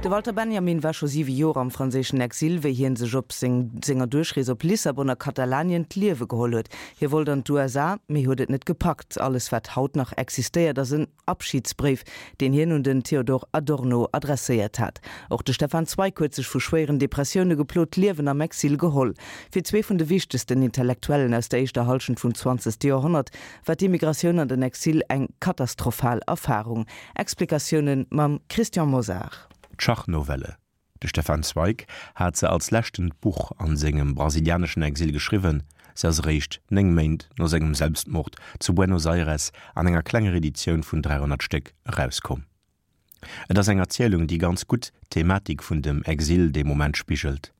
De Walter Benjamin war scho siwe Joer am franséischen Exil, wéi hien sech op senger Duerchrees op Lissabon a Katalanien d'Liewe geholl huet. Hie wollt an d'USA, mee huet et net gepackt. Alles wat haut nach existéiert ass en Abschidsbréif, deen hien un den Theodor Adorno adresséiert hat. Och de Stefan Zweig huet sech vu schwéieren Depressioune geplot d'Liewen am Exil geholl. Fir zwee vun de wichtegsten Intellektuellen aus der éischter Hallschent vum zwanzegste Joerhonnert war d'Immigratioun an den Exil eng katastrophal Erfarung. Explikatioune mam Christian Mosar. D'Schachnovelle. De Stefan Zweig hat se als leschtent Buch an sengem brasilianeschen Exil geschriwwen. Se ass eréischt 9 Méint no sengem Selbstmord zu Buenos Aires an enger klenger Editioun vun 300 Stéck erauskomm. Et ass eng Erzielung, déi ganz gutt d'Thematik vun dem Exil dee Moment spigelt.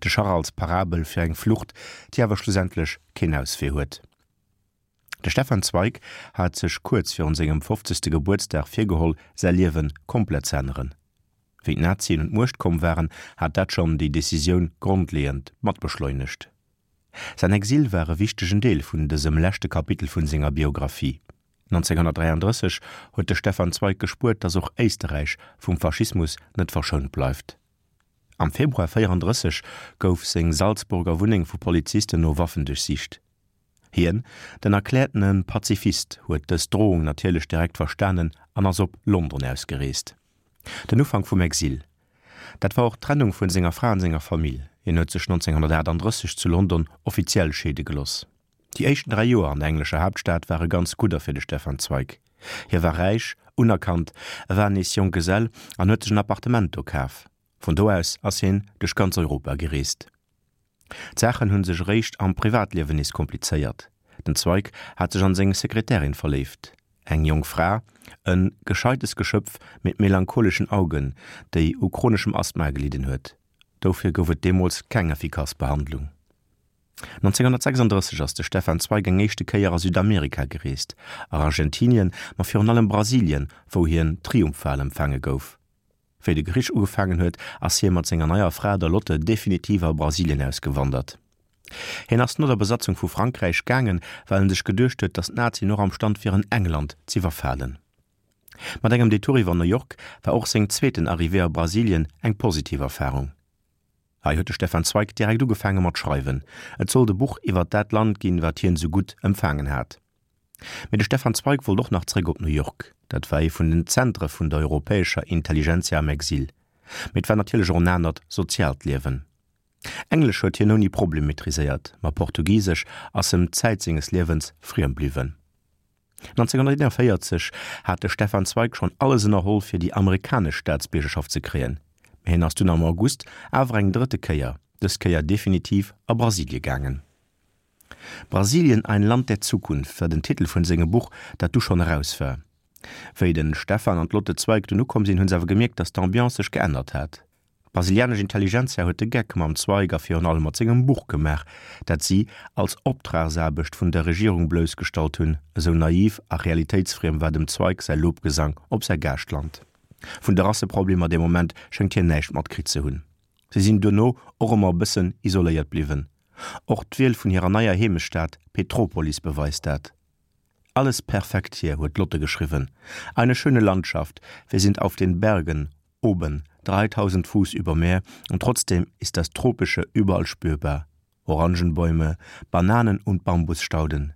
De Schach als Parabel fir eng Flucht, déi awer schlussendlech keen Auswee huet. De Stefan Zweig hat sech kuerz virun sengem fofzegste Gebuertsdag virgeholl, säi Liewe komplett ze änneren. Wéi d'Nazien un d'Muecht komm waren, hat dat schonn déi Decisioun grondleeënd mat beschleunegt. Säin Exil war e wichtegen Deel vun dësem leschte Kapitel vun senger Biographie. 1933 huet de Stefan Zweig gespuert, datt och Éisterräich vum Faschismus net verschount bleift. Am Februar 34 gouf seng Salzburger Wunneng vu Polizisten no Waffen duerchsicht. Hien, den erkläertene Pazifist, huet dës Drohung natierlech direkt verstanen an ass op London ausgereest. Den Ufank vum Exil, dat war och d'Trennung vun senger Fra an senger Famill. Hien huet sech 1938 zu London offiziell scheede geloss. Déi éischten 3 Joer an der englescher Haaptstad ware ganz gudder fir de Stefan Zweig. Hie war räich, unerkannt, e war nees Jonggesell an huet sech en Appartement do kaf. Vun do aus ass hien duerch ganz Europa gereest. D'Saachen hunn sech eréischt am Privatliewen nees komplizéiert. Den Zweig hat sech an seng Sekretärin verléift, eng jonk Fra, en gescheites Geschöpf mit melancholischen Augen, déi u chroneschem Asthma gelidden huet. Dofir gouf et deemools keng effikass Behandlung. 1936 ass de Stefan Zweig eng éischte Kéier a Südamerika gereest, a Argentinien, ma virun allem Brasilien, wou hien triumphal empfaange gouf. Wéi de Krich ugefaangen huet, ass hie mat senger neier Fra, der Lotte, definitiv a Brasilien ausgewandert. Hien ass no der Besatzung vu Frankräich gaangen, well en sech geduecht huet, datt d'Nazien och am Stand wieren, England z'iwwerfalen. Mat engem Detour iwwer New York war och seng zweeten Arrivée a Brasilien eng positiv Erfarung. Hei huet de Stefan Zweig direkt ugefaange mat schreiwen. Et sollt e Buch iwwer dat Land ginn, wat hien esou gutt empfaangen hat. Mee de Stefan Zweig wollt och nach zréck op New York. Dat war ee vun den Zentre vun der europäescher Intelligentsia am Exil. Mee et war natierlech och en anert soziaalt Liewen. Englesch huet hien ouni Problem maîtriséiert, ma Portugisesch ass em Zäit senges Liewens friem bliwwen. 1941 hat de Stefan Zweig schonn alles ënnerholl fir déi amerikanesch Staatsbiergerschaft ze kréien, mee hien ass dunn am August awer eng drëtte Kéier, dës Kéier definitiv a Brasilie gaangen. Brasilien, ein Land der Zukunft war den Titel vun sengem Buch, dat du schonn eraus war. Wéi den Stefan an d'Lotte Zweig dunn ukomm sinn, hunn se awer gemierkt, dass d'Ambiance sech geännert hat. D'brasilianesch Intelligentsia huet de Geck mam Zweig a virun allem mat sengem Buch gemaach, dat si als Optragsaarbecht vun der Regierung bloussgestallt hunn, esou naiv a realitéitsfriem war dem Zweig säi Lobgesang op säi Gaaschtland. Vun de Rasseproblemer dee Moment schéngt hien näischt matkritt ze hunn. Si sinn duerno och ëmmer e bëssen isoléiert bliwwen. Och d'Wiel vun hirer neier Heemechtsstad Petropolis beweist dat. Alles perfekt hier, huet d'Lotte geschriwwen. Eine schöne Landschaft, wir sind auf den Bergen oben, 3000 Fuß über Meer und trotzdem ist das Tropische überall spürbar. Orangenbäume, Bananen und Bambusstauden.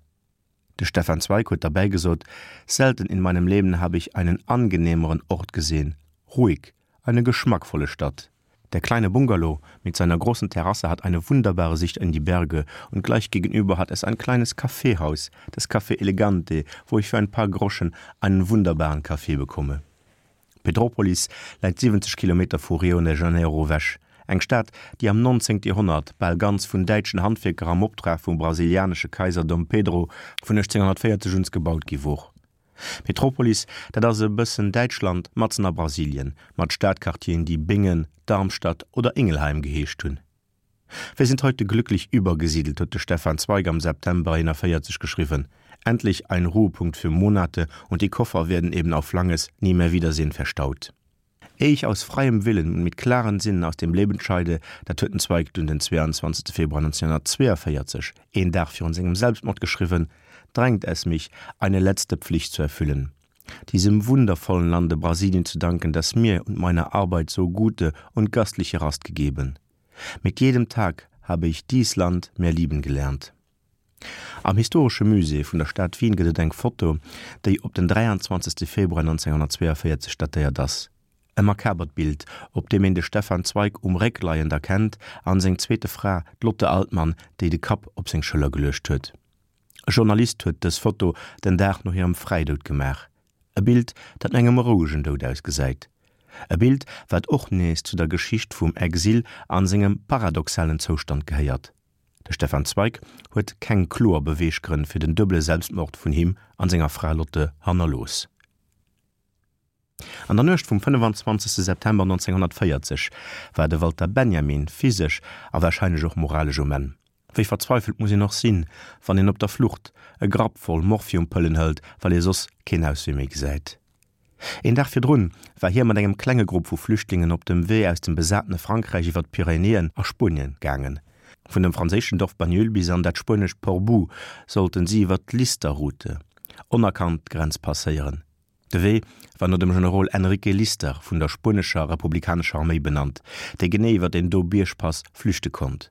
De Stefan Zweig huet derbäi gesot, Selten in meinem Leben habe ich einen angenehmeren Ort gesehen. Ruhig, eine geschmackvolle Stadt. Der kleine Bungalow mit seiner großen Terrasse hat eine wunderbare Sicht in die Berge und gleich gegenüber hat es ein kleines Kaffeehaus, das Café Elegante, wo ich für ein paar Groschen einen wunderbaren Kaffee bekomme. Petrópolis läit 70 Kilometer vu Rio de Janeiro ewech, eng Stad, déi am 19. Joerhonnert bal ganz vun däitschen Handwierker am Optrag vum brasilianesche Kaiser Dom Pedro vun 1840 un gebaut gi wor. Petrópolis, dat ass e bëssen Däitschland matzen a Brasilien, mat Stadquartieren, déi Bingen, Darmstadt oder Ingelheim geheescht hunn. Wir sind heute glücklich übergesiedelt, huet de Stefan Zweig am September 41 geschriwwen. Endlich ein Ruhepunkt für Monate und die Koffer werden eben auf langes Niemehrwiedersehen verstaut. Ehe ich aus freiem Willen und mit klaren Sinnen aus dem Leben scheide, dat huet den Zweig dunn den 22 Februar 1942, een Dag virun sengem Selbstmord geschriwwen, drängt es mich, eine letzte Pflicht zu erfüllen. Diesem wundervollen Lande Brasilien zu danken, das mir und meiner Arbeit so gute und gastliche Rast gegeben. Mit jedem Tag habe ich dies Land mehr lieben gelernt. Am Historesche Musée vun der Stad Wien gëtt et eng Foto, déi op den 23. Februar 1942 datéiert ass. E makabert Bild, op deem een de Stefan Zweig um Réck leiend erkennt an seng zweete Fra, d'Lotte Altmann, déi de Kapp op seng Schëller geluecht huet. E Journalist huet dës Foto den Dag no hirem Fräidoud gemaach. E Bild, dat no engem rouegen Doud ausgesäit. E Bild, wat och nees zu der Geschicht vum Exil an sengem paradoxalen Zoustand gehéiert. De Stefan Zweig huet keng kloer Beweeggrënn fir den duebele Selbstmord vun him an senger Fra Lotte hannerlooss. An der Nuecht vum 25 September 1940 war de Walter Benjamin physesch a warscheinlech och moralesch um Enn. Wéi verzweifelt muss een och sinn, wann een op der Flucht e Grapp voll Morphiumpëllen hëlt, well ee soss keen Auswee méi gesäit. Een Dag virdrun war hie mat engem klenge Grupp vu Flüchtlingen op dem Wee aus dem besatene Frankräich iwwer d'Pyrenäen a Spuenien gaangen. Vun dem franséischen Dorf Banyuls bis an dat spuenescht Portbou sollten si iwwer d'Lister-Route onerkannt d'Grenz passéieren. De Wee war no dem Generol Enrique Lister vun der spuenescher republikanescher Arméi benannt, dee genee iwwer deen do Biergpass flüchte konnt.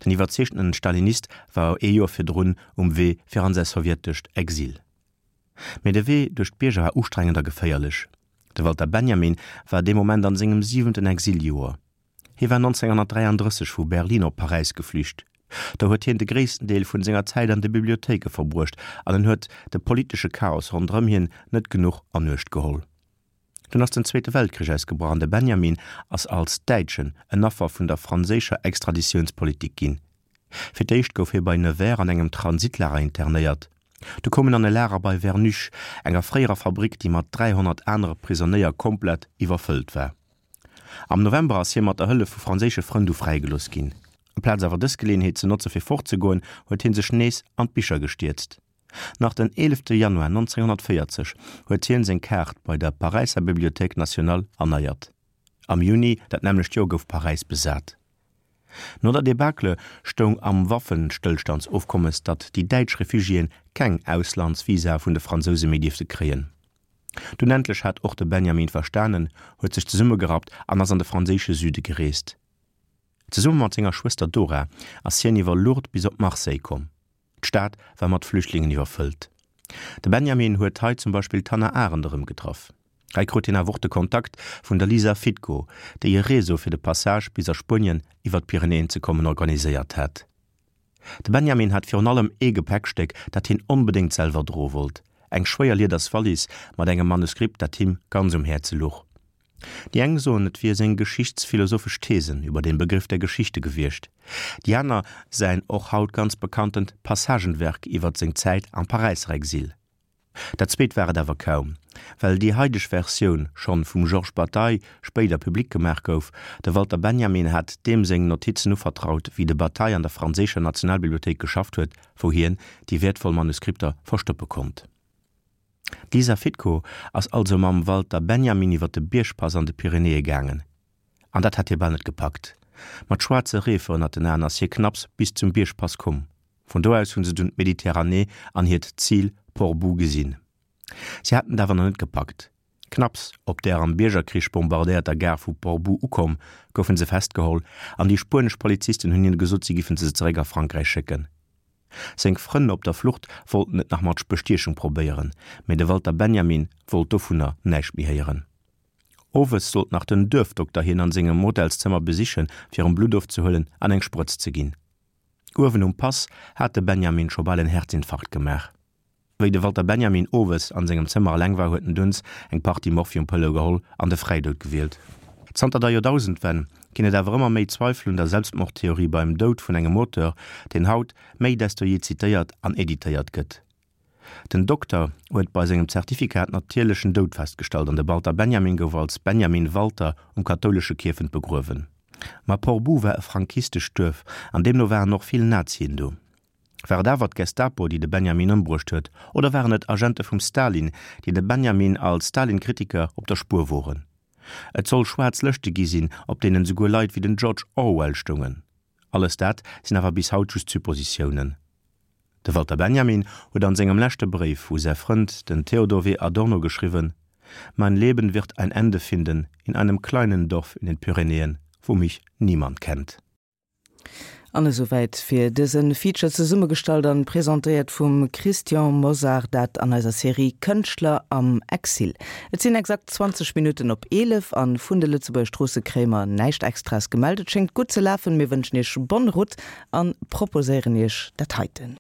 Den iwwerzeegtenen Stalinist war ee Joer virdrun um Wee fir an säi sowjetescht Exil. Mee de Wee duerch d'Bierger war ustrengend a geféierlech. De Walter Benjamin war dee Moment an sengem siwenten Exiljoer. Hie war 1933 vu Berlin op Paräis geflücht. Do huet hien de gréissten Deel vun senger Zäit an de Bibliothéike verbruecht an en huet de politesche Chaos ronderëm hien net genuch an Uecht geholl. Dunn ass den Zweete Weltkrich ausgebrach an de Benjamin ass als Däitschen en Affer vun der franséischer Extraditiounspolitik ginn. Fir d'éischt gouf hie bei Nevers an engem Transitlager internéiert. Du koum en an e Lager bei Vernuche, enger fréierer Fabrick, déi mat 300 anere Prisonéier komplett iwwerfëllt war. Am November ass hie mat der Hëllef vu franséische Frënn du fräigelooss ginn. Amplaz awer dës Geleeënheet ze notze fir fortzegoen, huet hie sech nees an d'Bicher gestierzt. Nach den 11 Januar 1940 huet hien seng Kaart bei der Paräisser Bibliothèque nationale erneiert. Am Juni dat nämmlecht Joer gouf Paräis besat. No der Debacle stoung am Waffenstëllstandsofkommes, datt déi däitsch Refugiéen keng Auslandsvisae vun de Fransouse méi dierfte kréien. Dunn endlech hat och de Benjamin verstanen, huet sech zesummegerappt an ass an de franséische Süde gereest. Zesumme mat senger Schwëster Dora ass hien iwwer Lourdes bis op Marseille komm. D'Stad war mat Flüchtlingen iwwerfëllt. De Benjamin huet hei zum Beispill d'Hannah Arendt erëmgetraff. Hei krut hien awer och de Kontakt vun der Lisa Fitko, déi e Réseau fir de Passage bis a Spuenien iwwer d'Pyrenäen ze kommen organiséiert hat. De Benjamin hat virun allem ee Gepäckstéck, dat hien onbedéngt selwer droe wollt, eng schwéier lieders Wallis mat engem Manuskript, dat him ganz um Häerze luch. Déi eng soen, et wier seng geschichtsphilosophesch Thesen über den Begriff der Geschichte gewiescht, déi aner säin och haut ganz bekanntent Passagenwerk iwwert seng Zäit am Paräisser Exil. Dat zweet war et awer kaum, well déi haideg Versioun schonn vum Georges Bataille spéider public gemaach gouf. De Walter Benjamin hat deem seng Notizen uvertraut, wéi de Bataille an der franséischer Nationalbibliothéik geschafft huet, wou hien déi wäertvoll Manuskripter verstoppe konnt. D'Lisa Fitko ass also mam Walter Benjamin iwwer de Biergpass an de Pyrenäe gaangen. An dat hat hie bal net gepackt. Mat schwaarze Reefer ënnert den Aen ass hie knapps bis zum Biergpass komm. Vun do aus hunn se dunn d'Mediterranee an hiert Zil Portbou gesinn. Si haten et awer nach net gepackt. Knapps op där am Biergerkrich bombardéierter Gare vu Portbou ukomm, goufen se festgeholl an déi spuenesch Polizisten hunn hinne gesot, si giffen se zeréck a Frankräich schécken. Seng Frënn op der Flucht wollten et nach mat Bestiechung probéieren, mee de Walter Benjamin wollt dovunner näischt méi héieren. Owes sollt nach den Duerfdokter hien an sengem Hotelszëmmer besichen, fir em Blutt ofzehuelen an eng Sprëtz ze ginn. Uewen um Pass hat de Benjamin scho bal en Herzinfarkt gemaach. Wéi de Walter Benjamin owes an sengem Zëmmer eleng war, huet en dunns eng Partie Morphiumpëlle geholl an de Fräidoud gewielt. Zanter der Joerdausendwenn ginn et awer ëmmer méi Zweifel un der Selbstmordtheorie beim Doud vun engem Auteur, deen haut méi desto jee zitéiert an editéiert gëtt. Den Dokter huet bei sengem Zertifikat natierlechen Doud festgestallt an de Walter Benjamin gouf als Benjamin Walter um kathoulesche Kierfent begruewen. Ma Portbou war e frankistescht Duerf an deemno waren och vill Nazien do. War et awer d'Gestapo, déi de Benjamin ëmbruecht huet, oder waren et Agente vum Stalin, déi de Benjamin als Stalin-Kritiker op der Spuer woren? Et soll schwaarz Lëschte gi sinn, op deenen esouguer Leit wéi den George Orwell stoungen. Alles dat sinn awer bis haut just Suppositiounen. De Walter Benjamin huet an sengem leschte Bréif u säi Frënd, den Theodor W. Adorno geschriwwen, Mein Leben wird ein Ende finden in einem kleinen Dorf in den Pyrenäen, wo mich niemand kennt. An esouwäit fir dëse Feature, zesummegestallt an presentéiert vum Christian Mosar, dat an eiser Serie Kënschtler am Exil. Et sinn exakt 20 Minutten op 11 an vun de Lëtzebuerger Stroosse kréie mer näischt Extraes gemellt. Et schéngt gutt ze lafen. Mir wënschen iech bonne route an proposéieren iech dat heiten.